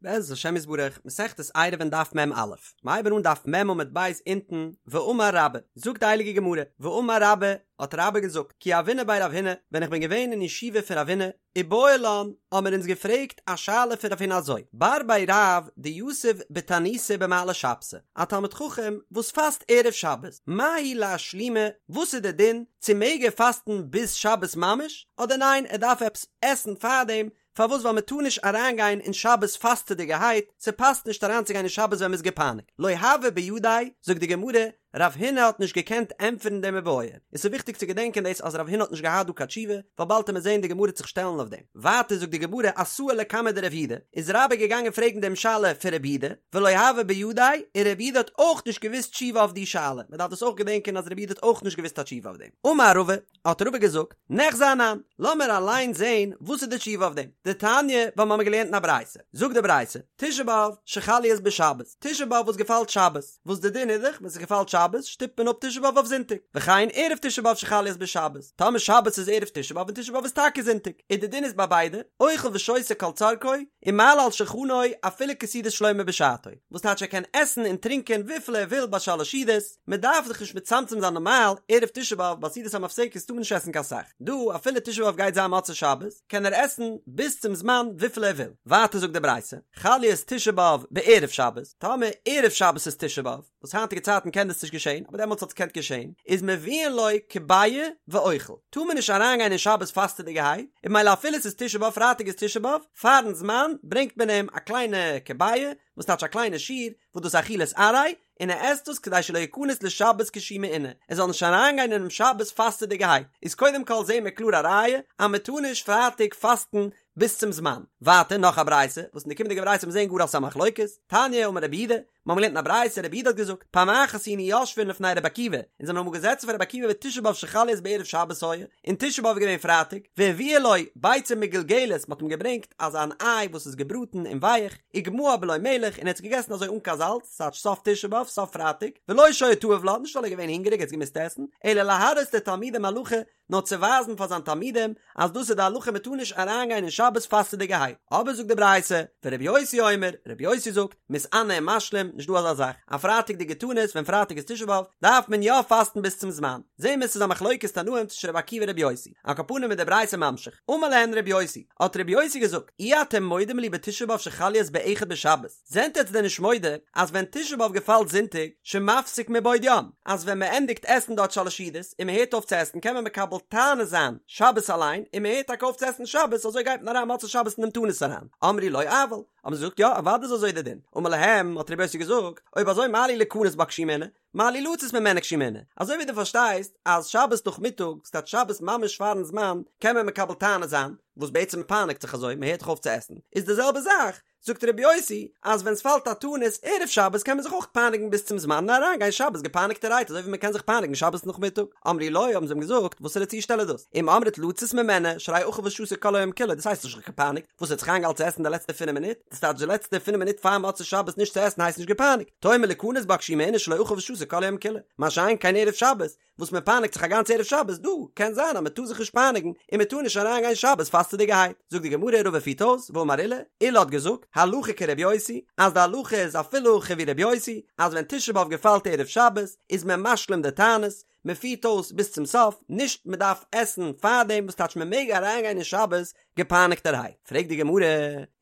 בעזרת השם יתברך, מסכת עירובין דף מ"א, מ'הייבן אן דף מ' עמוד ב' אונטן, ואמר רבה, זאגט די הייליגע גמרא, ואמר רבה, האט רבה געזאגט, כי הוינא בי רב הונא, ווען איך בין געווען אין ישיבה פון רב הונא, איבעיא לן, האמיר אונז געפרעגט א שאלה פון רב הונא אזוי, בר בי רב דיתיב בתעניתא במעלי שבתא, א תלמיד חכם וואס פאסט ערב שבת, מהו לאשלומי, וואס איז די דין, צו מעג ער פאסטן ביז שבת ממש, אדער ניין ער דארף עפעס עסן פארדעם, פארוואס ווייל מען טאר נישט אריינגיין אין שבת פאסטעדיגערהייט, ס'פאסט נישט אריינצוגיין אין שבת ווען מ'איז געפייניגט, לא הוה בידיה, זאגט די גמרא, רב הונא האט נישט געקענט ענטפערן דעם איבעיא, און ס'איז וויכטיג צו געדענקען דאס אז רב הונא האט נישט געהאט דא קיין תשובה, ווייל באלד וועט מען זען די גמרא וועט זיך שטעלן אויף דעם. ווייטער זאגט די גמרא אתאי לקמיה דרב יהודה, איז רבה געגאנגען פרעגן דעם שאלה פון רב יהודה, ולא הוה בידיה, און רב יהודה האט אויך נישט געוואוסט תשובה אויף די שאלה, מ'דארף דאס אויך געדענקען אז רב יהודה האט אויך נישט געוואוסט א תשובה אויף דעם. אמר רבא, האט רבא געזאגט, ניחזי אנן, לאמיר אליין זען וואס איז די תשובה אויף דעם. דתניא, ווייל מ'האמיר געלערנט אין א ברייתא. זאגט די ברייתא, תשעה באב שחל להיות בשבת, תשעה באב וואס געפאלט שבת, וואס די דין איז דאך ווען ס'געפאלט שבת שטופט מען אפ תשעה באב אויף זונטאג, וכן ערב תשעה באב שחל להיות בשבת, טאמער שבת איז ערב תשעה באב און תשעה באב איז טאקע זונטאג, און די דין איז ביי ביידע, אוכל ושותה כל צרכו, ומעלה על שולחנו אפילו כסעודת שלמה בשעתו, וואס טייטש ער קען עסן און טרינקען וויפיל ער וויל ביי שלש סעודות, מען דארף זיך נישט מצמצם זיין נארמאל, ערב תשעה באב ביי סעודת המפסקת טאר מען נישט עסן קיין סך, דא אפילו תשעה באב גייט זיין מוצאי שבת, קען ער עסן ביז צום זמן וויפיל ער וויל. ווייטער זאגט די ברייתא, חל להיות תשעה באב בערב שבת, טאמער ערב שבת איז תשעה באב, וואס היינטיגע צייטן קען דאס נישט געשען, אבער דעמאלטס האט עס געקענט געשען, איז מביאין לו כביעא ואוכל, טאר מען נישט אריינגיין אין שבת פאסטעדיגערהייט, און ממילא אפילו עס איז תשעה באב פרייטאג איז תשעה באב, פארן זמן ברענגט מען אים א קליינע כביעא, וואס טייטש א קליינע שעיר, וואס דאס איז אכילת עראי, און ער עסט דאס כדי שלא יכנס לשבת כשהוא מעונה, ער זאל נישט אריינגיין אינעם שבת פאסטעדיגערהייט, איז קודם כל זעהן מיר קלאר א ראיה אז מען טאר נישט פרייטאג פאסטן ביז צום זמן, ווייטער נאך א ברייתא, וואס אין די קומענדיגע ברייתא וועט מען זעהן גאר אז ס'איז א מחלוקת, תניא אמר רבי יהודה, מיר האבן געלערנט אין א ברייתא, רבי יהודה האט געזאגט, פעם אחת היינו יושבין לפני רבי עקיבא, אונז זעמיר אמאל געזעצן פאר רבי עקיבא ותשעה באב שחל להיות בערב שבת היה, און תשעה באב איז געווען פרייטאג, והביאו לו ביצה מגולגלת, מ'האט אים געברענגט אזא אן איי וואס איז געבראטן און ווייך, וגמעה בלא מלח, און ער האט עס געגעסן אזוי אן קיין זאלץ, ס'טייטש סוף תשעה באב, סוף פרייטאג, ולא שהיה תאוב לה, נישט ווייל ער איז געווען הונגעריג ער האט עס געמוזט עסן, אלא להראות לתלמידים הלכה, נאר צו ווייזן פאר זיין תלמידים אז דאס איז די הלכה מען טאר נישט אריינגיין אין שבת פאסטעדיגערהייט, אבער זאגט די ברייתא, ורבי יוסי אומר, רבי יוסי זאגט, מתענה ומשלים, נישט דא אזא זאך, א פרייטאג'דיגע תענית ווען פרייטאג איז תשעה באב, דארף מען יא פאסטן ביז צום זמן, זעהן מיר ס'איז א מחלוקת תנאים צווישן רבי עקיבא און רבי יוסי, על כל פנים איז די ברייתא ממשיך, אמר להן רבי יוסי, האט רבי יוסי געזאגט, אי אתם מודים לי בתשעה באב שחל להיות באחד בשבת, זענט עטץ דען נישט מודה אז ווען תשעה באב געפאלט זונטאג שמפסיק מבעוד יום, אז ווען מען ענדיגט עסן דארט שלש סעודות און מען הערט אויף צו עסן קען מען מקבל תענית זיין שבת אליין און מען הערט טאקע אויף צו עסן שבת אזוי גייט מען אריין מוצאי שבת אין דעם תענית אריין, אמרו לו אבל, האבן זיי געזאגט יא אוודאי איז אזוי דער דין, אמר להם האט רבי יוסי געזאגט אויב אזוי מה לי ליכנס בה כשהוא מעונה, מה לי לצאת ממנה כשהוא מעונה, אזוי ווי דו פארשטייסט אז שבת נאכמיטאג, ס'טייטש שבת ממש פארן זמן, קען מען מקבל תענית זיין, וואס בעצם מען פייניגט זיך אזוי, מען הערט דאך אויף צו עסן, איז די זעלבע זאך, זאגט רבי יוסי, אז ווען ס'פאלט א תענית ערב שבת קען מען זיך אויך פייניגן ביז צום זמן און אריינגיין שבת געפייניגטערהייט אזוי ווי מען קען זיך פייניגן שבת נאכמיטאג, אמרו לו, האבן זיי אים געזאגט, וואסערע צושטעל איז דאס? אם אמרת לצאת ממנה, שהרי אכל ושתה כל היום כולו, דאס הייסט נישט זיך געפייניגט, וואס ער האט זיך איינגעהאלטן צו עסן די לעצטע פינף מינוט, דאס טייטש די לעצטע פינף מינוט פאר מוצאי שבת נישט צו עסן הייסט נישט געפייניגט, תאמר ליכנס בה כשהיא מעונה שלא אכל ושתה כל היום כולו, מה שאין כן ערב שבת, וואס מען פייניגט זיך א גאנץ ערב שבת, דא קען זיין אז מען טאר זיך נישט פייניגן און מען טאר נישט אריין גיין שבת פאסטעדיגערהייט, זאגט די גמרא רבא פירט אויס, ואמר עולא, עולא האט געזאגט, הלכה כרבי יוסי, אז די הלכה איז אפילו הכי ווי רבי יוסי, אז ווען תשעה באב געפאלט ערב שבת, איז מען משלים די תענית, מען פירט אויס ביז צום סוף, נישט מען דארף עסן פארדעם, וואס טייטש מען מעג אריינגיין אין שבת געפייניגטערהייט? פרעגט די גמרא,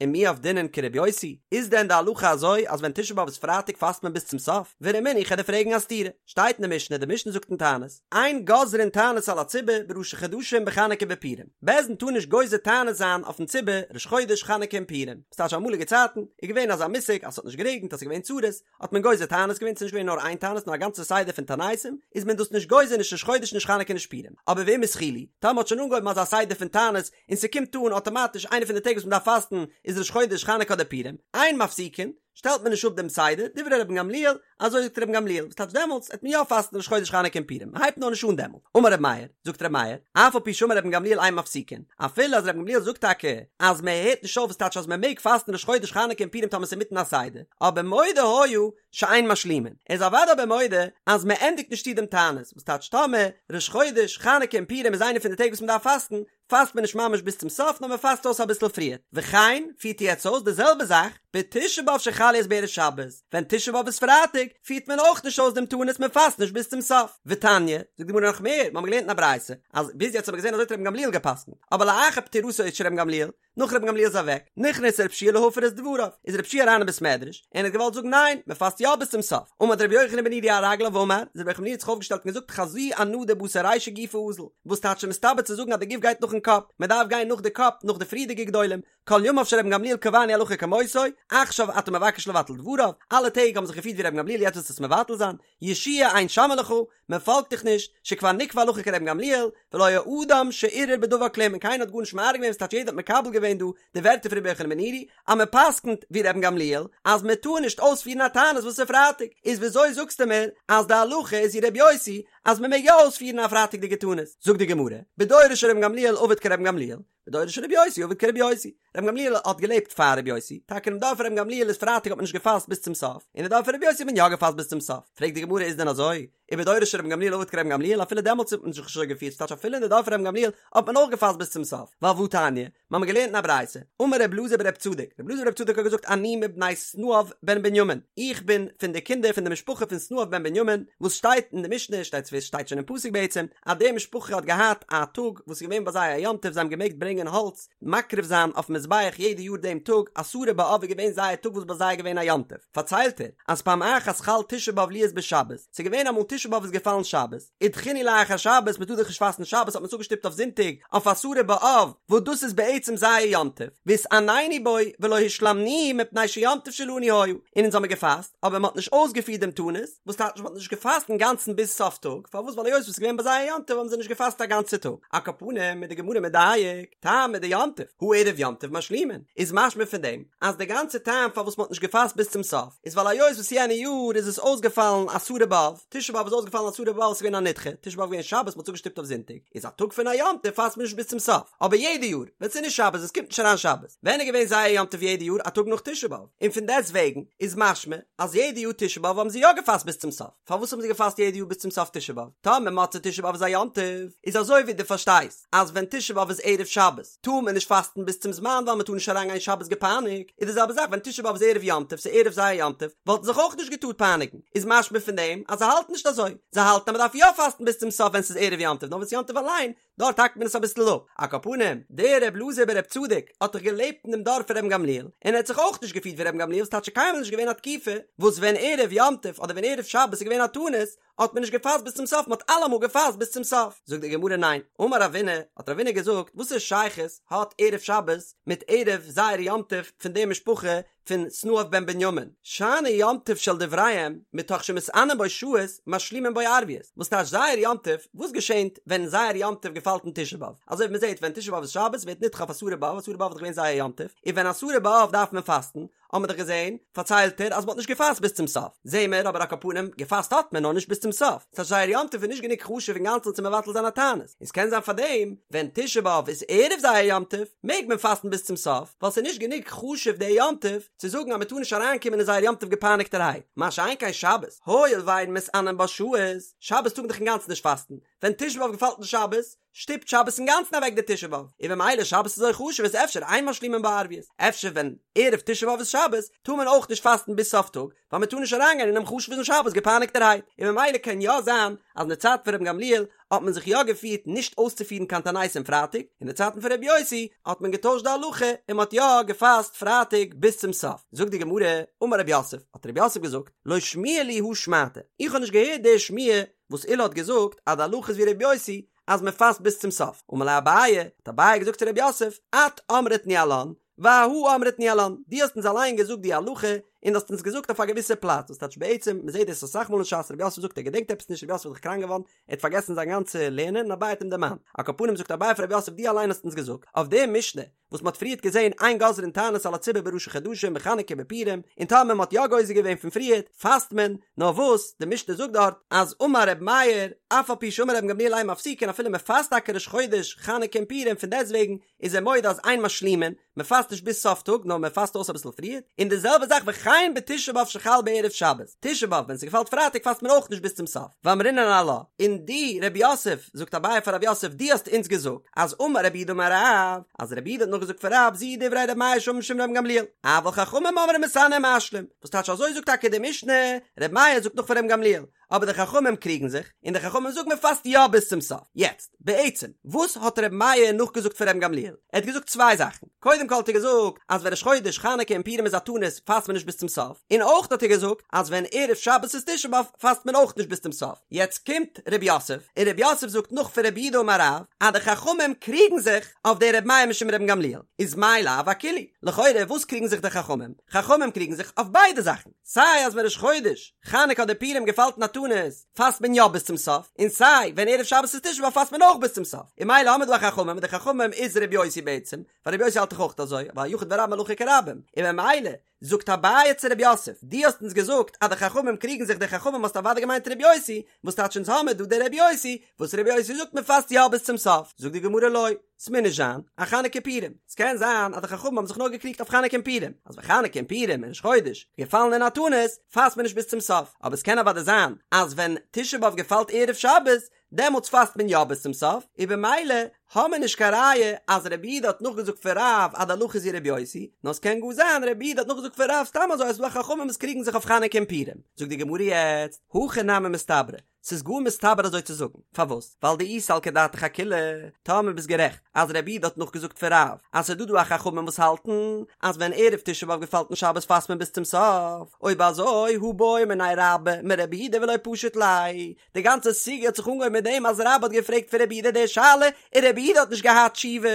ומי עבדינן כרבי יוסי, איז דען די הלכה אזוי אז ווען תשעה באב איז פרייטאג פאסט מען ביז צום סוף? ורמינהו איך וועל דיר פרעגן א סתירה, שטייט אין די משנה, די משנה זאגט אין תענית, אין גוזרין תענית על הציבור בראשי חדשים בחנוכה בפורים, בית דין טאר נישט גוזר תענית זיין אויפן ציבור ראש חודש חנוכה און פורים, וואס טייטש אמאליגע צייטן איז געווען אזא מושג אז ס'האט נישט גערעגנט אז ס'איז געווען צרות, האט מען גוזר תענית געווען, ס'איז נישט געווען נאר איין תענית נאר א גאנצע סדר פון תעניתים, איז מען דאס נישט גוזר נישט ראש חודש נישט חנוכה נישט פורים, אבער ואם התחילו, טאמער מ'האט שוין אנגעהויבן אזא סדר פון תענית, און ס'קומט אן אטאמאטיש איינע פון די טעג וואס מ'דארף פאסטן איז ראש חודש חנוכה אדער פורים, אין מפסיקין, שטעלט מען נישט אפ דעם סדר, דברי רבן גמליאל, אזוי זאגט רבן גמליאל, וואס טייטש דעמאלטס העט מען יא פאסטן ראש חודש חנוכה און פורים, מ'הייבט נאר נישט אן דעמאלט, אמר רבי מאיר, זאגט רבי מאיר, אף על פי שאמר רבן גמליאל אין מפסיקין, אפילו אז רבן גמליאל זאגט טאקע אז מען הערט נישט אויף וואס טייטש אז מען מעג פאסטן ראש חודש חנוכה און פורים טאמער ס'איז אינמיטן א סדר, אבער מודה היה שאין משלימין, ער איז אוודאי אבער מודה אז מען ענדיגט נישט צו דעם תענית, וואס טייטש טאמער ראש חודש חנוכה און פורים איז איינע פון די טעג וואס מען דארף פאסטן, פאסט מען נישט ממש ביז צום סוף נאר מען פאסט אויס אביסל פריער, וכן פירט ער יעצט אויס די זעלבע זאך בתשעה באב שחל להיות בערב שבת, ווען תשעה באב איז פרייטאג פירט מען אויך נישט אויס דעם תענית מען פאסט נישט ביז צום סוף, ותניא, זאגט די גמרא נאך מער, מיר האבן געלערנט אין א ברייתא אז ביז יעצט האט מען געזען אזוי האט רבן גמליאל גע'פסק'נט, אבער לאחר פטירתו של רבן גמליאל, נאך רבן גמליאל איז אוועק, נכנס רב שיע להפר את דבריו, איז רב שיע אריין אין בית מדרש, און האט געוואלט זאגן ניין, מען פאסט יא ביז צום סוף, עמד רבי יוחנן בן נורי על רגליו ואמר, איז רבי יוחנן בן נורי האט זיך אויפגעשטעלט און געזאגט חזי אנא דבתר רישא גופא אזיל, וואס טייטש מסתבר צו זאגן אז די גוף גייט נאכן קאפ, מען דארף גיין נאך די קאפ, נאך די פריערדיגע גדולים, כל ימיו של רבן גמליאל קבענו הלכה כמותו, עכשיו אתה מבקש לבטל דבריו, אלע טעג האבן זיך געפירט ווי רבן גמליאל יעצט ווילסטו עס מבטל זיין, יהושע אין שומעין לך, מען פאלגט דיך נישט, שכבר נקבע הלכה כרבן גמליאל, ולא היה אדם שערער בדבר כלום און קיינער האט גארנישט מערער געווען ס'טייטש יעדער האט מקבל געווען דא די ווערטער פון רבי יוחנן בן נורי אז מען פסק'נט ווי רבן גמליאל אז מען טאר נישט אויספירן א תענית וואס איז פרייטאג, איז וויאזוי זאגסטו מיר אז די הלכה איז ווי רבי יוסי אז מען מעג יא אויספירן א פרייטאג'דיגע תענית? זאגט די גמרא, בדורו של רבן גמליאל עבד כרבן גמליאל, בדורו של רבי יוסי עבד כרבי יוסי. רבן גמליאל האט געלעבט פאר רבי יוסי, טאקע אינעם דור פון רבן גמליאל איז פרייטאג האט מען נישט געפאסט ביז צום סוף, און אין דור פון רבי יוסי האט מען יא געפאסט ביז צום סוף. פרעגט די גמרא איז דען אזוי? ובדורו של רבן גמליאל עבד כרבן גמליאל אפילו דעמאלטס האט מען זיך נישט אזוי געפירט ס'טייטש אפילו אין די דור פון רבן גמליאל האט מען אויך געפאסט ביז צום סוף, ווייל והתניא, מיר האבן געלערנט אין א ברייתא, אמר רב אלעזר ברב צדוק, רב אלעזר ברב צדוק האט געזאגט אני מבני סנאב בן בנימין, איך בין פון די קינדער פון די משפחה פון סנאב בן בנימין, וואס שטייט אין די משנה, שטייט שטייט שוין אין פסוק בעצם, אז די משפחה האט געהאט א טאג וואס איז געווען ביי זיי א יום טוב זיי האבן געמעגט ברענגען האלץ מקריב זיין אויפן מזבח יעדע יאר דעם טאג עשרה באב איז געווען זייער טאג וואס ביי זיי איז געווען א יום טוב פארציילט ער אז פעם אחת חל תשעה באב להיות בשבת ס'איז געווען אמאל תשעה באב איז געפאלן שבת ודחינהו לאחר שבת מ'טאר דאך נישט פאסטן שבת האט מען עס אפגעשטופט אויף זונטאג אויף עשרה באב וואס דאס איז בעצם זייער יום טוב והתענינו בו ולא השלמנוהו מפני שיום טוב שלנו היה און אונז האמיר געפאסט אבער מ'האט נישט אויסגעפירט דעם תענית וואס טייטש מ'האט נישט געפאסט אינגאנצן ביז סוף טאג, פארוואס ווייל היות וואס איז געווען ביי זיי א יום טוב האבן זיי נישט געפאסט א גאנצע טאג, על כל פנים איז די גמרא מדייק, טעמא דיום טוב, הא ערב יום טוב משלימין, איז משמע פון דעם אז די גאנצע טעם פארוואס מ'האט נישט געפאסט ביז צום סוף איז ווייל היות וואס יענע יאר איז עס אויסגעפאלן עשרה באב, תשעה באב איז אויסגעפאלן עשרה באב עס איז געווען א נדחה, תשעה באב איז געווען שבת מ'האט עס אפגעשטופט אויף זונטאג, איז א טאג פון א יום טוב פאסט מען נישט ביז צום סוף, אבער יעדע יאר ווען ס'איז נישט שבת עס קומט נישט אריין שבת, ווען איז געווען זייער יום טוב יעדע יאר א טאג נאך תשעה באב, און פון דעסט וועגן איז משמע אז יעדע יאר תשעה באב האבן זיי יא געפאסט ביז צום סוף, פארוואס האבן זיי געפאסט יעדע יאר ביז צום סוף תשעה באב? טאמער מוצאי תשעה באב איז א יום טוב, איז אזוי ווי דו פארשטייסט אז ווען תשעה באב איז ערב שבת טאר מען נישט פאסטן ביז צום זמן ווייל מען טאר נישט אריין גיין שבת געפייניגט, איז די זעלבע זאך ווען תשעה באב איז ערב יום טוב, ס'איז ערב זייער יום טוב, וואלטן זיך אויך נישט געטארט פייניגן, איז משמע פון דעם אז זיי האלטן נישט אזוי, זיי האלטן אז מען דארף יא פאסטן ביז צום סוף ווען ס'איז ערב יום טוב, נאר ווען ס'איז יום טוב אליין דארט האקט מען עס אביסל אפ. על כל פנים, דער רב אלעזר ברב צדוק האט דאך געלעבט אין דעם דור פון רבן גמליאל, און ער האט זיך אויך נישט געפירט ווי רבן גמליאל, ס'טייטש ס'איז קיינמאל נישט געווען א תקופה וואס ווען ערב יום טוב אדער ווען ערב שבת איז געווען א תענית האט מען נישט געפאסט ביז צום סוף, מען האט אלעמאל געפאסט ביז צום סוף. זאגט די גמרא ניין, אמר רבינא, האט רבינא געזאגט, וואסער שייכות האט ערב שבת מיט ערב זייער יום טוב פון די משפחה פון סנאב בן בנימין, שאני יום טוב של דבריהם, מתוך שמתענין בו שעות, משלימין בו ערביות, וואס טייטש זייער יום טוב, וואס געשענט ווען זייער יום טוב געפאלט אין תשעה באב? אזוי ווי מען זעט ווען תשעה באב איז שבת ווערט נדחה אויף עשרה באב, עשרה באב איז דאך געווען זייער יום טוב, און ווען עשרה באב דארף מען פאסטן, האט מען דאך געזען, פארציילט ער, אז מען האט נישט געפאסט ביז צום סוף, זעהן מיר אבער על כל פנים, געפאסט האט מען נאר נישט ביז צום סוף, ס'טייטש זייער יום טוב איז נישט גענוג חשוב אינגאנצן צו מבטל זיין א תענית. און ס'קען זיין פארדעם ווען תשעה באב איז ערב זייער יום טוב מעג מען פאסטן ביז צום סוף ווייל ס'איז נישט גענוג חשוב דער יום טוב צו זאגן אז מ'טאר נישט אריינקומען אין זייער יום טוב געפייניגטערהייט, מה שאין כן שבת, הואיל ואין מתענין בה שעות, שבת טאר מען דאך אינגאנצן נישט פאסטן, ווען תשעה באב געפאלט אין שבת, שטופט שבת אינגאנצן אוועק די תשעה באב, און במילא שבת איז אזוי חשוב איז אפשר אין משלימין בה ערביות, אפשר ווען ערב תשעה באב איז שבת טאר מען אויך נישט פאסטן ביז סוף טאג, ווייל מען טאר נישט אריינגיין אינעם חשוב'ן שבת געפייניגטערהייט, און ממילא קען יא זיין אז אין די צייט פון רבן גמליאל האט מען זיך יא געפירט נישט אויסצופירן קיין תעניתים פרייטאג, אין די צייטן פון רבי יוסי האט מען געטוישט די הלכה און מען האט יא געפאסט פרייטאג ביז צום סוף. זאגט די גמרא, אמר רב יוסף, האט רב יוסף געזאגט, לא שמיע לי הא שמעתא, איך האב נישט געהערט די שמועה וואס עולא האט געזאגט אז די הלכה איז ווי רבי יוסי אז מען פאסט ביז צום סוף, אמר ליה אביי, האט אביי געזאגט צו רב יוסף, את אמרת ניהלן, ואהא אמרת ניהלן, דו האסט אונז אליין געזאגט די הלכה, און דו האסט אונז געזאגט אויף א געוויסע פלאץ, וואס טייטש בעצם, מען זעט דאס אסאך מאל אין ש"ס, רב יוסף זאגט ער געדענקט עפעס נישט, רב יוסף איז דאך קראנק געווארן, ער האט פארגעסן זיין גאנצע לערנען, און אביי האט אים דערמאנט. על כל פנים זאגט אביי פאר רב יוסף דו אליין האסט אונז געזאגט, אויף די משנה, וואס מען האט פריערט געזען אין גוזרין תענית על הציבור בראשי חדשים בחנוכה בפורים, און טאמער מען האט יא גוזר געווען פון פריערט, פאסט מען, נאר וואס, די משנה זאגט דארט, אז אמר ר' מאיר, אף על פי שאמר רבן גמליאל אין מפסיקין אפילו מען פאסט טאקע ראש חודש, חנוכה און פורים, פון דעסטוועגן, איז ער מודה אז אין משלימין, מען פאסט. פאסט נישט ביז סוף טאג נאר מען פאסט אויס אביסל פריער, און די זעלבע זאך וכן בתשעה באב שחל בערב שבת, תשעה באב ווען ס'געפאלט פרייטאג פאסט מען אויך נישט ביז צום סוף, ואמרינן עלה, און דו רב יוסף, זאגט אביי פאר רב יוסף דו האסט אונז געזאגט אז אמר רב יהודה אמר רב, אז רב יהודה האט נאכגעזאגט פון רב זו דברי ר' מאיר שאמר משום רבן גמליאל, אבל חכמים אומרים מתענה ומשלים, וואס טייטש אזוי זאגט טאקע די משנה, ר' מאיר זאגט נאך פון רבן גמליאל, אבער די חכמים קריגן זיך, און די חכמים זאגן מען פאסט יא ביז צום סוף. יעצט, בעצם, וואס האט ר' מאיר נאכגעזאגט פון רבן גמליאל? ער האט געזאגט צוויי זאכן. קודם כל האט ער געזאגט אז ווען ראש חודש חנוכה און פורים איז א תענית פאסט מען נישט ביז צום סוף, און אויך האט ער געזאגט אז ווען ערב שבת איז תשעה באב פאסט מען אויך נישט ביז צום סוף. יעצט קומט ר' יוסף, און ר' יוסף זאגט נאך פון רב יהודה אמר רב, אז די חכמים קריגן זיך אויף די ר' מאיר משום רבן גמליאל. איז מאי לאו אכולהו? לכאורה וואס קריגן זיך די חכמים? חכמים קריגן זיך אויף ביידע זאכן. סיי אז ווען ראש חודש חנוכה אדער פורים געפאלט אין א תענית פאסט מען יא ביז צום סוף, און סיי ווען ערב שבת איז תשעה באב פאסט מען אויך ביז צום סוף, און ממילא האמיר דא א חכמים און די חכמים איז ר' יוסי בעצם, ווייל ר' יוסי האלט דאך אויך אזוי, ווייל יחיד ורבים הלכה כרבים, און ממילא זאגט אביי צו ר' יוסף, דו האסט אונז געזאגט אז די חכמים קריגן זיך די חכמים האסט אוודאי געמיינט ר' יוסי, וואס טייטש אונז האמיר דא די ר' יוסי, וואס ר' יוסי זאגט מען פאסט יא ביז צום סוף, זאגט די גמרא לא. ס'מוז נישט זיין אחנוכה ופורים, ס'קען זיין אז די חכמים האבן זיך נאר געקריגט אויף חנוכה און פורים, אז ווען חנוכה און פורים און ראש חודש געפאלן אין א תענית, פאסט מען נישט ביז צום סוף, אבער ס'קען אוודאי זיין אז ווען תשעה באב געפאלט ערב שבת, דעמאלטס פאסט מען יא ביז צום סוף, און במילא האמיר נישט קיין ראיה אז רבי יהודה האט נאכגעזאגט פון רב אז די הלכה איז ווי רבי יוסי, נאר ס'קען גאר זיין רבי יהודה האט נאכגעזאגט פון רב סתם אזוי אז ס'דא חכמים וואס קריגן זיך אויף חנוכה און פורים, זאגט די גמרא יעצט, הכי נמי מסתברא, ס'איז גאר מסתבר אזוי צו זאגן. פארוואס? ווייל דאי סלקא דעתך אכולהו, טאמער ביסט גערעכט אז רבי יהודה האט נאכגעזאגט פון רב אז ס'איז דא דא א חכמים וואס האלטן אז ווען ערב תשעה באב געפאלט אין שבת פאסט מען ביז צום סוף, אויב אזוי הא בעא מיניה רבה מרבי יהודה ולא פשט ליה, די גאנצע סוגיא האט זיך אנגעהויבן מיט דעם אז רבה האט געפרעגט פון רבי יהודה די שאלה און רבי יהודה האט נישט געהאט תשובה,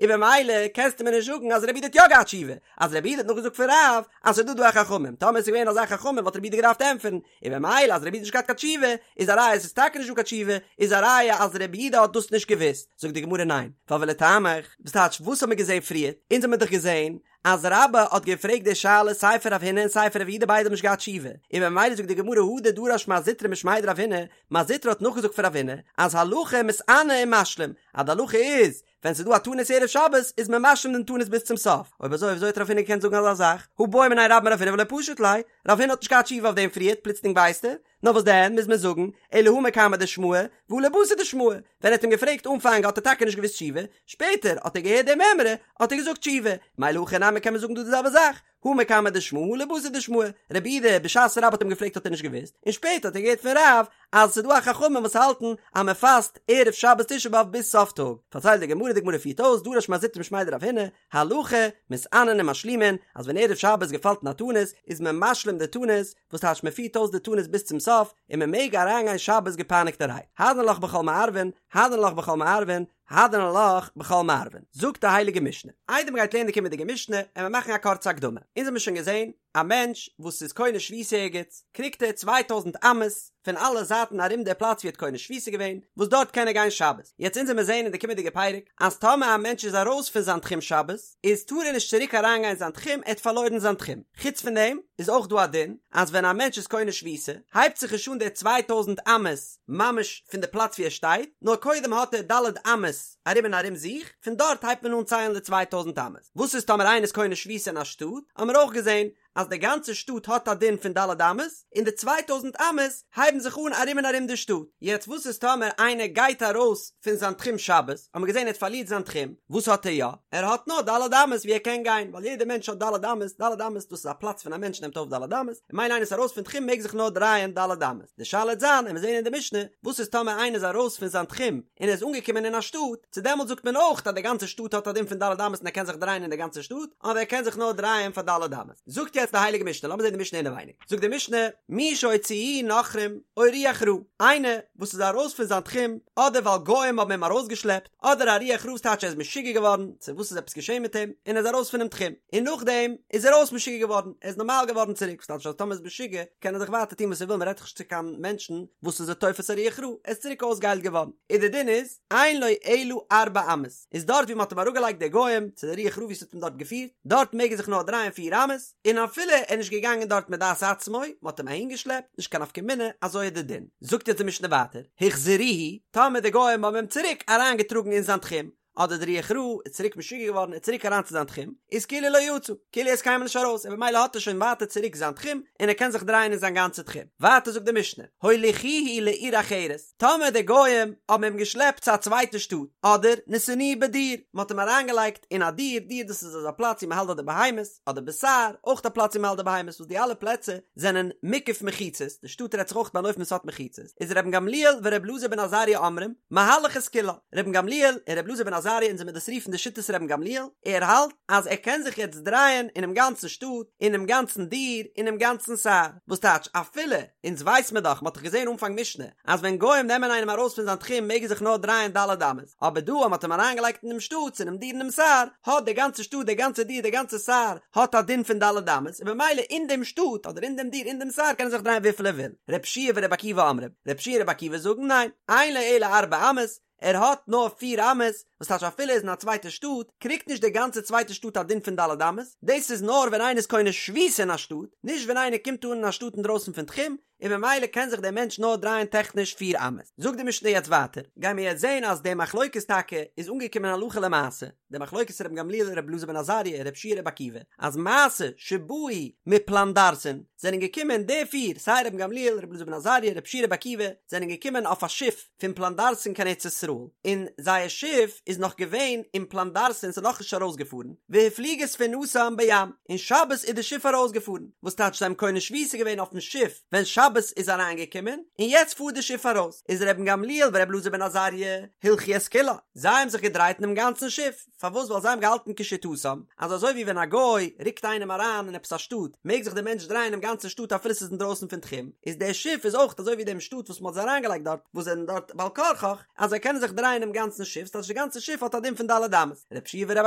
און במילא קענסטו מיר נישט זאגן אז רבי יהודה האט יא געהאט תשובה, אז רבי יהודה האט נאכגעזאגט פון רב אז ס'איז דא דא א חכמים, טאמער עס איז געווען אזא חכמים וואלט רבי יהודה געדארפט ענטפערן, און במילא אז רבי יהודה האט נישט געהאט קיין תשובה, איז א ראיה עס איז טאקע נישט דא קיין תשובה, איז א ראיה אז רבי יהודה האט דאס נישט געוואוסט, זאגט די גמרא ניין, ווייל ולטעמיך, וואס טייטש וואס האט מען געזען פריערט, אונז האמיר דאך געזען אז רבה האט געפרעגט די שאלה סיי פון רב הונא און סיי פון רב יהודה ביידע האבן נישט געהאט תשובה, און במילא זאגט די גמרא הדר דרש מר זוטרא משמיה דרב הונא, מר זוטרא האט נאכגעזאגט פון רב הונא אז הלכה מתענה ומשלים, אז די הלכה איז ווען ס'איז דא א תענית ערב שבת איז מען משלים דעם תענית ביז צום סוף, אויב אזוי וויאזוי האט רב הונא געקענט זאגן אזא זאך? הא בעא מיניה רבה מרב הונא ולא פשט ליה, רב הונא האט נישט געהאט תשובה אויף דעם פריערט פלוצלינג ווייסט ער? נאר וואס דען מוז מען זאגן אלא הא מקמי דשמעא והא לבתר דשמעא, ווען ער האט אים געפרעגט אנפאנג האט ער טאקע נישט געוואוסט תשובה, שפעטער האט ער געהערט די מימרא האט ער געזאגט תשובה, מילא הכא נמי קען מען זאגן דא די זעלבע זאך, הא מקמי דשמעא הא לבתר דשמעא, רבי יהודה בשעת רבה האט אים געפרעגט האט ער נישט געוואוסט, און שפעטער האט ער געהערט פון רב אז ס'איז דא א חכמים וואס האלטן אז מען פאסט ערב שבת תשעה באב ביז סוף טאג, פארציילט די גמרא, די גמרא פירט אויס, דרש מר זוטרא משמיה דרב הונא, הלכה, מתענין ומשלימין, אז ווען ערב שבת געפאלט אין א תענית, איז מען משלים די תענית, וואס טייטש מען פירט אויס די תענית ביז צום סוף, און מען מעג אריינגיין שבת געפייניגטערהייט, הדרן עלך בכל מערבין, הדרן עלך בכל מערבין, הדרן עלך בכל מערבין, זאגט די הייליגע משנה. איידער מ'גייט לערנען די קומענדיגע משנה, עמיר מאכן א קורצע הקדמה. אונז האמיר שוין געזען, א מענטש וואס איז קונה שביתה ערגעץ, קריגט ער צוויי טויזנט אמות פון אלע זייטן ארום די פלאץ ווי ער האט קונה שביתה געווען, וואס דארט קען ער גיין שבת. יעצט אונז עמיר זען אין די קומענדיגע פרק, אז טאמער א מענטש איז ארויס פון זיין תחום שבת, איז טאר ער נישט צוריק אריינגיין אין זיין תחום, ער האט פארלוירן זיין תחום. חוץ פון דעם, איז אויך דא א דין, אז ווען א מענטש איז קונה שביתה, הייבט זיך נישט אן די צוויי טויזנט אמות ממש פון די פלאץ ווי ער שטייט, נאר קודם האט ער ד' אמות ארום און ארום זיך, פון דארט הייבט מען אן ציילן די צוויי טויזנט אמות. וואס איז טאמער איינער איז קונה שביתה אין א שטאט, האמיר אויך געזען אז די גאנצע שטאט האט א דין פון ד' אמות, און די צוויי טויזנט אמות הייבן זיך אן ארום און ארום די שטאט. יעצט וואס איז טאמער איינער גייט ארויס פון זיין תחום שבת, האמיר געזען ער האט פארלירט זיין תחום, וואס האט ער יא? ער האט נאר ד' אמות ווי ער קען גיין, ווייל יעדער מענטש האט ד' אמות, ד' אמות דאס איז א פלאץ פון א מענטש נעמט אויף ד' אמות, און ממילא איינער איז ארויס פון תחום מעג זיך נאר דרייען ד' אמות. די שאלה וועט זיין, עמיר זען אין די משנה, וואס איז טאמער איינער איז ארויס פון זיין תחום און ער איז אנגעקומען אין א שטאט, צו דעמאלט זאגט מען אויך אז די גאנצע שטאט האט א דין פון ד' אמות און ער קען זיך דרייען אין די גאנצע שטאט, אדער ער קען זיך נאר דרייען פאר ד' אמות. זאגט יעצט די הייליגע משנה, לאמיר זען די משנה אינעווייניג, זאגט די משנה, מי שהוציאוהו נכרים או רוח רעה, איינער וואס איז ארויס פון זיין תחום, אדער ווייל גוים האבן אים ארויסגעשלעפט, אדער א רוח רעה ס'טייטש ער איז משוגע געווארן, צו וואס איז עפעס געשען מיט אים, און ער איז ארויס פונעם תחום, און נאכדעם איז ער אויס משוגע געווארן, ער איז נארמאל געווארן צוריק, וואס טייטש אז טאמער איז משוגע קען ער זיך ווייטער טון וואס ער וויל, מען רעדט דאך נישט צו קיין מענטשן וואס איז א תופס א רוח רעה, ער איז צוריק אויסגעהיילט געווארן, און די דין איז, אין לו אלא ארבע אמות, איז דארט ווי מען האט אים אראפגעלייגט די גוים, צו די רוח רעה ווי ס'האט אים דארט געפירט, דארט מעג ער זיך נאר דרייען פיר אמות, און אפילו ער איז נישט געגאנגען דארט מדעת עצמו, מען האט אים אהינגעשלעפט, נישט קיין נפקא מינה, אזוי איז די דין. זאגט יעצט די משנה ווייטער, החזירוהו, טאמער די גוים האבן אים צוריק אריינגעטראגן אין זיין תחום, אדער די רוח רעה איז צוריק משוגע געווארן און צוריק אריין צו זיין תחום, איז כאילו לא יצא, כאילו ער איז קיינמאל נישט ארויס און במילא האט ער שוין ווייטער צוריק זיין תחום און ער קען זיך דרייען אין זיין גאנצע תחום. ווייטער זאגט די משנה, הוליכוהו לעיר אחרת, טאמער די גוים האבן אים געשלעפט צו א צווייטע שטאט, אדער נתנוהו בדיר, מען האט אים אריינגעלייגט אין א דיר, דיר דאס איז אזא פלאץ ווי מען האלט דארט די בהמות, אדער בסהר, אויך א פלאץ ווי מען האלט די בהמות, וואס די אלע פלעצער זענען מוקף מחיצות, די שטאט רעדט זיך אויך ביי אן אופן וואס האט מחיצות, איז רבן גמליאל ור' אלעזר בן עזריה אומרים, מהלך את כולה, רבן גמליאל און ר' אלעזר בן עזריה אונז וועמיר דאס רופן די שיטת רבן גמליאל, ער האלט אז ער קען זיך יעצט דרייען אינעם גאנצן שטאט, אינעם גאנצן דיר, אינעם גאנצן סהר, וואס טייטש אפילו, אונז ווייס מיר דאך, מען האט דאך געזען אנפאנג משנה, אז ווען גוים נעמען איינעם ארויס פון זיין תחום מעג ער זיך נאר דרייען ד' אמות, אבער דא אז מען האט אים אריינגעלייגט אינעם שטאט, צו אינעם דיר אינעם סהר, האט די גאנצע שטאט, די גאנצע דיר, די גאנצע סהר, האט א דין פון ד' אמות, און במילא אין דעם שטאט, אדער אין דעם דיר, אין דעם סהר קען ער זיך דרייען וויפיל ער וויל. ר' יהושע ור' עקיבא אומרים, ר' יהושע און ר' עקיבא זאגן ניין, אין לו אלא ארבע אמות, ער האט נאר פיר אמות, וואס טייטש אפילו ער איז אין א צווייטע שטאט, קריגט נישט די גאנצע צווייטע שטאט א דין פון ד' אמות, דאס איז נאר ווען איינער איז קונה שביתה אין א שטאט, נישט ווען איינער קומט אן אין א שטאט אינדרויסן פון תחום, און ממילא קען זיך דער מענטש נאר דרייען טעכניש פיר אמות. זאגט די משנה יעצט ווייטער, גייען מיר יעצט זען אז די מחלוקת טאקע איז אנגעקומען הלכה למעשה, די מחלוקת רבן גמליאל ר' אלעזר בן עזריה ר' יהושע ר' עקיבא, אז מעשה שבאו מפלנדרסין, זענען געקומען די פיר, סיי רבן גמליאל ר' אלעזר בן עזריה ר' יהושע ר' עקיבא, זענען געקומען אויף א שיף פון פלנדרסין קיין ארץ ישראל, און זייער שיף איז נאך געווען אין פלנדרסין ס'איז נאכנישט ארויסגעפארן, והפליגה ספינתם בים, און שבת איז די שיף ארויסגעפארן, וואס טייטש זיי האבן קונה שביתה געווען אויפן שיף ווען שבת איז אריינגעקומען, און יעצט פארט די שיף ארויס, איז רבן גמליאל ור' אלעזר בן עזריה הלכו את כולה, זיי האבן זיך געדרייט אינעם גאנצן שיף. פארוואס ווייל זיי האבן געהאלטן כשיטתם אז אזוי ווי ווען א גוי רוקט איינעם אריין אין עפעס א שטאט מעג זיך דער מענטש דרייען אינעם גאנצן שטאט אפילו ס'איז אינדרויסן פון תחום איז דער שיף איז אויך אזוי ווי דעם שטאט וואס מ'האט זיי אריינגעלייגט דארט וואס זענען דארט בעל כרחך אז זיי קענען זיך דרייען אינעם גאנצן שיף ס'טייטש די גאנצע שיף האט א דין פון ד' אמות ר' יהושע ור'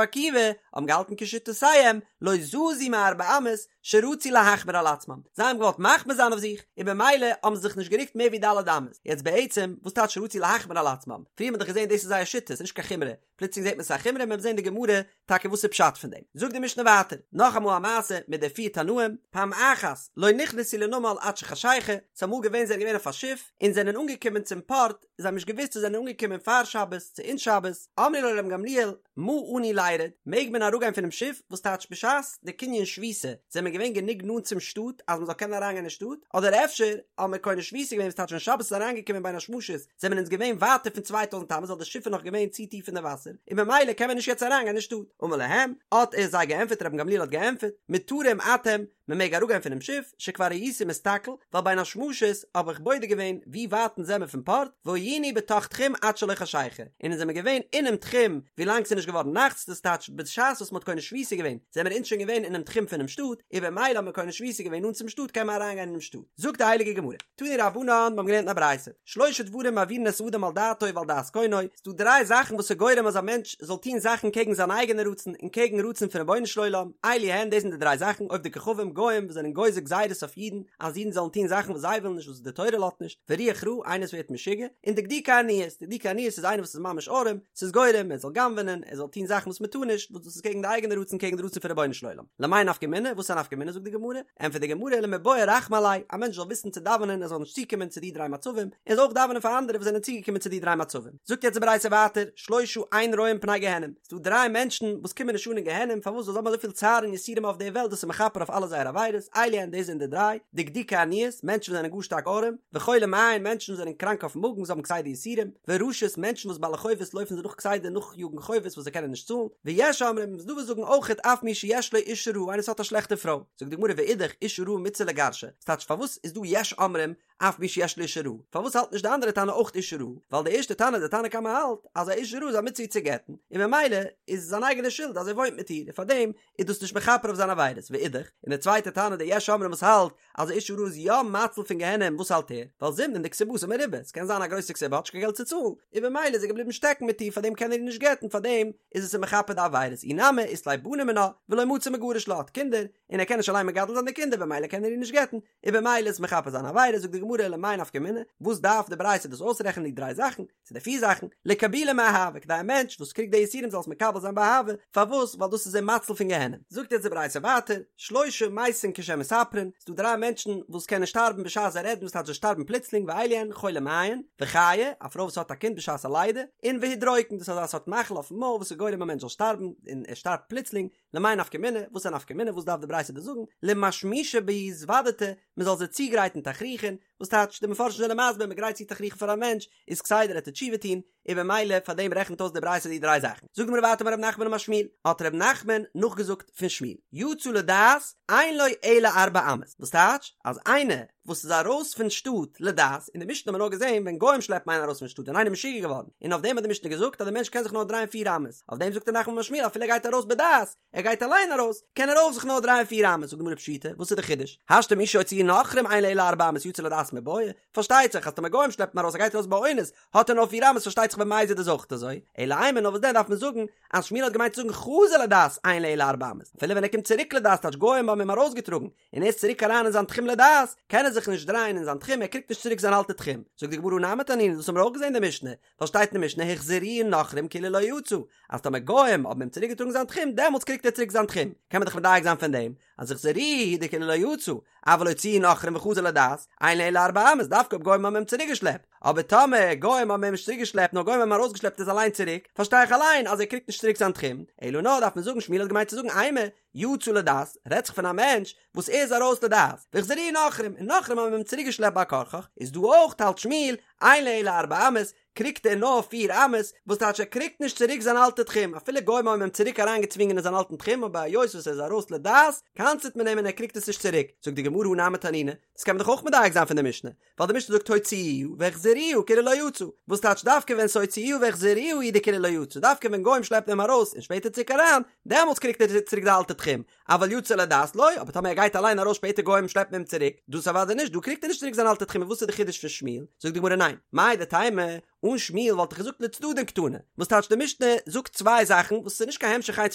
עקיבא האבן געהאלטן כשיטותיהם לא זזו מארבע אמות שרצו להחמיר על עצמם, זיי האבן געוואלט מחמיר זיין אויף זיך, און במילא האבן זיי זיך נישט גערוקט מער ווי ד' אמות. יעצט בעצם, וואס טייטש רצו להחמיר על עצמם? פריער האט מען דאך געזען דאס איז זייער שיטה, ס'איז נישט קיין חומרא, פלוצלינג זעט מען ס'איז א חומרא, מ'וועט זען די גמרא טאקע וואס איז פשט פון דעם. זאגט די משנה ווייטער, נאכאמאל א מעשה מיט די פיר תנאים, פעם אחת לא נכנסו לנמל עד שחשיכה, ס'איז אמאל געווען זיי זענען געווען אויף א שיף, און זענען אנגעקומען צום פארט, זיי האבן נישט געוואוסט צו זענען אנגעקומען פאר שבת צו אין שבת, אמרו לו לרבן גמליאל, מה אנו לירד, מעג מען אראפגיין פונעם שיף, וואס טייטש בשעת די קנין שביתה זענען מיר געווען גענוג נאנט צום שטאט אז מען זאל קענען אריינגיין אין שטאט, אדער אפשר האבן מיר קונה שביתה געווען וואס טייטש ווען שבת איז אריינגעקומען בין השמשות זענען אונז געווען ווייטער פון צוויי טויזנט אמות ווייל די שיף איז נאך געווען צו טיף אין די וואסער און במילא קען מען נישט יעצט אריינגיין אין שטאט, אמר להם, האט ער זיי געענטפערט רבן גמליאל האט געענטפערט, מותרים אתם, מען מעג אראפגיין פונעם שיף, שכבר הייתי מסתכל, ווייל בין השמשות האב איך בודק געווען ווי ווייט אונז זעמער פון פארט, והיינו בתוך תחום עד שלא חשיכה, און אונז זעמער געווען אינעם תחום ווילאנג ס'איז נישט געווארן נאכט, דאס טייטש בשעת וואס מ'האט קונה שביתה געווען זעמער אונז שוין געווען אינעם תחום פונעם שטאט, און במילא האט מען קונה שביתה געווען נאנט צום שטאט קען מען אריינגיין אינעם שטאט. זאגט די הייליגע גמרא. תנו רבנן, מיר האבן געלערנט אין א ברייתא, שלשה דברים מעבירין את האדם על דעתו ועל דעת קונו, ס'דא דריי זאכן וואס איז גורם אז א מענטש זאל טון זאכן קעגן זיין אייגענע רצון און קעגן רצון פון רבונו של עולם, אלו הן, דאס זענען די דריי זאכן, עובדי כוכבים, גוים וואס זענען גוזר גזירות אויף אידן, אז אידן זאלן טון זאכן וואס זיי ווילן נישט וואס די תורה לאזט נישט, ורוח רעה, איינער וואס ווערט משוגע, און דקדוקי עניות, דקדוקי עניות איז איינער וואס איז ממש ארעם, ס'איז גורם ער זאל גנב'ענען, ער זאל טון זאכן וואס מען טאר נישט, וואס דאס איז קעגן די אייגענע רצון קעגן די רצון פון רבונו של עולם. למאי נפקא מינה, וואס איז א נפקא מינה זאגט די גמרא, ענטפערט די גמרא למיבעי רחמי עליה, א מענטש זאל וויסן צו דאווענען ער זאל נישט צוקומען צו די דריי מצבים, און זאל אויך דאווענען פאר אנדערע וואס זענען צוגעקומען צו די דריי מצבים. זאגט יעצט די ברייתא ווייטער, שלושה אין רואים פני גיהנום, ס'דא דריי מענטשן וואס קומען נישט אן אין גיהנום, פארוואס ווייל זיי האבן אזויפיל צער און יסורים אויף די וועלט דאס איז מכפר אויף אלע זייערע עבירות, אלו הן דאס זענען די דריי, דקדוקי עניות, מענטשן וואס זענען גאר שטארק ארעם, וחולי מעין, מענטשן וואס זענען קראנק אויפן מאגן, זיי האבן כסדר יסורים, ורשות, מענטשן וואס בעלי חובות לויפן זיי נאך כסדר נאכיאגן חובות וואס זיי קענען נישט צאלן, ויש אומרים, ס'דא וואס זאגן אויכעט אף מי שיש לו אשה רעה, איינער וואס האט א שלעכטע פרוי, זאגט די גמרא ואידך, אשה רעה מצוה לגרשה, ס'טייטש פארוואס איז דא יש אומרים אף מי שיש לו אשה רעה, פארוואס האלט נישט די אנדערע תנא אויך אשה רעה, ווייל די ערשטע תנא די תנא קמא האלט אז א אשה רעה איז א מצוה צו גט'ן, און ממילא איז עס זיין אייגענע שולד אז ער וואוינט מיט איר, און פארדעם איז דאס נישט מכפר אויף זיינע עבירות, ואידך, און די צווייטע תנא די יש אומרים וואס האלט אז א אשה רעה איז יא מציל פון גיהנום, וואס האלט ער? ווייל זימנין דכתובתה מרובה, ס'קען זיין א גרויסע כתובה האט נישט קיין געלט צו צאלן, און במילא איז ער געבליבן שטעקן מיט איר פארדעם קען ער איר נישט גט'ן פארדעם איז עס אים מכפר די עבירות, אי נמי אית ליה בנים מינה ולא מצי מגרש לה האט קינדער, און ער קען נישט אליין מגדל זיין די קינדער במילא קען ער איר נישט גט'ן, און במילא איז מכפר זיינע עבירות, זאגט די גמרא. גמרא למאי נפקא מינה, וואס דארף די ברייתא דאס אויסרעכענען די דריי זאכן, צו די פיר זאכן, לקבולי מאהבה, כדי א מענטש וואס קריגט די יסורים זאל עס מקבל זיין באהבה, פארוואס? ווייל דאס איז אים מציל פון גיהנום. זאגט יעצט די ברייתא ווייטער, שלושה מתין כשהן מספרין, ס'דא דריי מענטשן וואס קענען שטארבן בשעת זיי רעדן וואס טייטש זיי שטארבן פלוצלינג ואלו הן, חולי מעין, וחיה, א פרוי וואס האט א קינד בשעת א לידה, און והודרוקן, דאס איז אזא סארט מחלה אויפן מויל וואס איז גורם א מענטש זאל שטארבן, און ער שטארבט פלוצלינג, למאי נפקא מינה, וואס איז א נפקא מינה, וואס דארף די ברייתא דא זאגן, למשמישי בהו זוודתא, מען זאל זיי צוגרייטן תכריכין, וואס טייטש, די מפרשים זענען מסביר, מען גרייט צו תכריכין פאר א מענטש, איז כסדר ער טוט תשובה טון, און במילא פאר דעם רעכנט אויס די ברייתא די דריי זאכן. זאגט די גמרא ווייטער אמר רב נחמן אמר שמואל, האט רב נחמן נאכגעזאגט פון שמואל, יצא לדעת, אין לו אלא ארבע אמות, וואס טייטש, אז איינער וואס איז ארויס פון שטאט לדעת, אין די משנה האט מען נאר געזען ווען גוים שלעפן איינעם ארויס פון שטאט ווען איינער איז משוגע געווארן, און אויף דעם האט די משנה געזאגט אז דער מענטש קען זיך נאר דרייען פיר אמות, אויף דעם זאגט רב נחמן אמר שמואל אפילו ער גייט ארויס בדעת, ער גייט אליין ארויס, קען ער אויך זיך נאר דרייען פיר אמות, זאגט די גמרא פשיטא, וואס איז די חידוש? השתא מי שהוציאוהו נכרים אין לו אלא ארבע אמות יצא לדעת מיבעיא, פארשטייט זיך אז טאמער גוים שלעפן ארויס ער גייט ארויס באונס, האט ער נאר פיר אמות פארשטייט זיך במזיד איז אויך אזוי, אלא אימא נאר וואס דען דארף מען זאגן אז שמואל האט געמיינט צו זאגן חזר לדעת אין לו אלא ארבע אמות, אפילו ווען ער קומט צוריק לדעת טייטש גוים האבן אים ארויסגעטראגן, און ער איז צוריק אריין אין זיין תחום לדעת, קען ער זיך נישט דרייען אין זיין תחום, ער קריגט נישט צוריק זיין אלטע תחום. זאגט די גמרא הא נמי תנינא, דאס האבן מיר אויך געזען אין די משנה, ווייל שטייט אין די משנה החזירוהו נכרים כאילו לא יצא, אז טאמער גוים האבן אים צוריק געטראגן זיין תחום, דעמאלטס קריגט ער צוריק זיין תחום, קען מען דאך מדייק זיין פון דעם, אז החזירוהו הוא דכאילו לא יצא, אבל הוציאוהו נכרים וחזר לדעת, אין לו אלא ארבע אמות, דווקא אויב גוים האבן אים צוריק געשלעפט, אבער טאמער גוים האבן אים נישט צוריק געשלעפט נאר גוים האבן אים ארויסגעשלעפט איז אליין צוריק, פארשטיי איך אליין אז ער קריגט נישט צוריק זיין תחום, אלא נאר דארף מען זאגן שמואל האט געמיינט צו זאגן אימא, יצא לדעת, רעדט זיך פון א מענטש וואס ער איז ארויס לדעת, והחזירוהו נכרים, און נכרים האבן אים צוריק געשלעפט בעל כרחך, איז דא אויך האלט שמואל, אין לו אלא ארבע אמות, קריגט ער נאר פיר אמות, וואס טייטש ער קריגט נישט צוריק זיין אלטע תחום, אפילו גוים האבן אים צוריק אריין געצווינגען אין זיין אלטן תחום אבער היות וואס ער איז ארויס לדעת, קנס'עט מען אים און ער קריגט עס נישט צוריק, זאגט די גמרא הא נמי תנינא, דאס קען מען דאך אויך מדייק זיין פון די משנה, ווייל די משנה זאגט הוציאוהו והחזירוהו כאילו לא יצא, וואס טייטש דווקא ווען ס'הוציאוהו והחזירוהו הוא דכאילו לא יצא, דווקא ווען גוים שלעפן אים ארויס און שפעטער צוריק אריין, דעמאלטס קריגט ער צוריק די אלטע תחום, אבל יצא לדעת לא, אבער טאמער ער גייט אליין ארויס שפעטער גוים שלעפן אים צוריק, דאס אוודאי נישט, דא קריגט ער נישט צוריק זיין אלטע תחום, און וואס איז די חידוש פון שמואל? זאגט די גמרא ניין, מהו דתימא, אן שמואל וואלט איך געזאגט לצדדין קתני, וואס טייטש די משנה זאגט צוויי זאכן וואס איז נישט קיין המשך איינס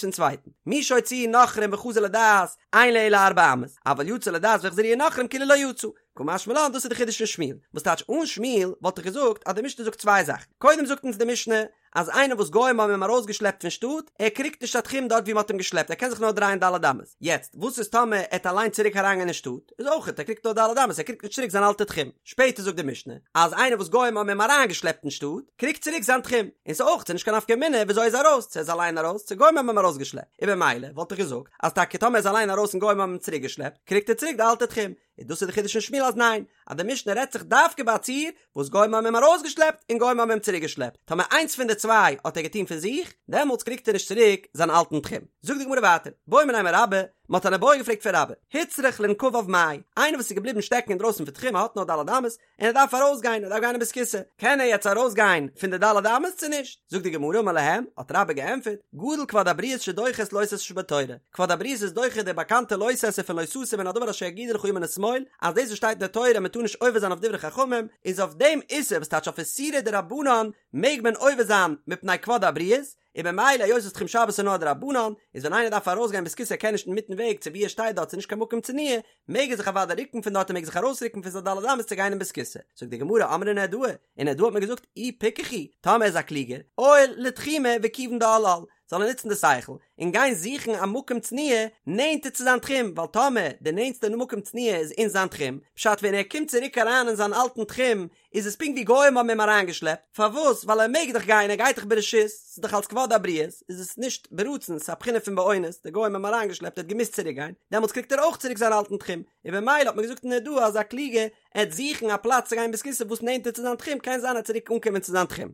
פון צווייטן, מי שהוציאוהו נכרים וחזר לדעת, אין לו אלא ארבע אמות, אבל יצא לדעת והחזירוהו נכרים כאילו לא יצא, קא משמע לן דאס איז די חידוש פון שמואל, וואס טייטש אן שמואל וואלט איך געזאגט אז די משנה זאגט צוויי זאכן, קודם זאגט אונז די משנה אז איינער וואס גוים האבן אים ארויסגעשלעפט פון שטאט, ער קריגט נישט א תחום דארט ווי מען האט אים געשלעפט, ער קען זיך נאר דרייען ד' אמות, יעצט וואס איז טאמער ער העט אליין צוריק אריינגיין אין שטאט, איז אויכעט ער קריגט נאר ד' אמות, ער קריגט נישט צוריק זיין אלטע תחום, שפעטער זאגט די משנה אז איינער וואס גוים האבן אים אריינגעשלעפט אין שטאט, קריגט צוריק זיין תחום, און ס'איז אויך נישט קיין נפקא מינה וויאזוי ער איז ארויס, צו ער איז אליין ארויס, צו גוים האבן אים ארויסגעשלעפט, און במילא וואלט איך געזאגט אז טאקע טאמער ער איז אליין ארויס און גוים האבן אים צוריקגעשלעפט, קריגט ער צוריק די אלטע תחום, און דאס איז די חידוש פון שמואל אז ניין, אז די משנה רעדט זיך דווקא ביי א ציור וואס גוים האבן אים ארויסגעשלעפט און גוים האבן אים צוריקגעשלעפט, טאמער איינס פון די צוויי האט ער געטון פון זיך, דעמאלטס קריגט ער נישט צוריק זיין אלטן תחום. זאגט די גמרא ווייטער, בעו מיניה מרבה, מען האט אן איבעיא געפרעגט פון רבה, הוצרך לנקביו מאי, איינער וואס איז געבליבן שטעקן אינדרויסן פון תחום ער האט נאר ד' אמות, און ער דארף ארויסגיין, ער דארף גיין אין בית כסא, קען ער יעצט ארויסגיין פון די ד' אמות צו נישט? זאגט די גמרא אמר להם, האט רבה געענטפערט, גדול כבוד הבריות שדוחה את לא תעשה שבתורה, כבוד הבריות איז דוחה די באקאנטע לא תעשה פון לא תסור מן הדבר אשר יגידו לך ימין ושמאל, אז דאס וואס שטייט אין די תורה אז מען טאר נישט עובר זיין אויף דברי חכמים, איז אויף דעם איסור וואס טייטש אויף איסורי דרבנן מעג מען עובר זיין מפני כבוד הבריות, און במילא היות וואס תחום שבת איז נאר א דרבנן, איז ווען איינער דארף ארויסגיין בית כסא ער קען נישט אינמיטן וועג צו ווי ער שטייט דארט ס'איז נישט קיין מקום צנועה, מעג ער זיך אוודאי רוקן פון דארט און מעג זיך ארויסרוקן פון זיין ד' אמות צו גיין אין בית כסא. זאגט די גמרא אמרי נהרדעא, אין נהרדעא האט מען געזאגט אי פיקח הוא, טאמער ער איז א קלוגער, עייל לתחומיה וכיוון דעל על, זאל ער נוצן די שכל, און גיין זוכן א מקום צנועה נענטער צו זיין תחום, ווייל טאמער די נענטסטע מקום צנועה איז אין זיין תחום, פשט ווען ער קומט צוריק אריין אין זיין אלטן תחום, איז עס פונקט ווי גוים האבן אים אריינגעשלעפט, פארוואס? ווייל ער מעג דאך גיין, ער גייט דאך ברשות, ס'איז דאך אלס כבוד הבריות, איז עס נישט ברצון, ס'איז א בחינה פון באונס, די גוים האבן אים אריינגעשלעפט, ער האט געמוזט צוריק גיין, דעמאלטס קריגט ער אויך צוריק זיין אלטן תחום, און במילא האט מען געזאגט אין נהרדעא אז א קלוגער עט זוכן א פלאץ צו גיין בית כסא וואס נענטער צו זיין תחום, קען זיין ער עט צוריק אנקומען צו זיין תחום.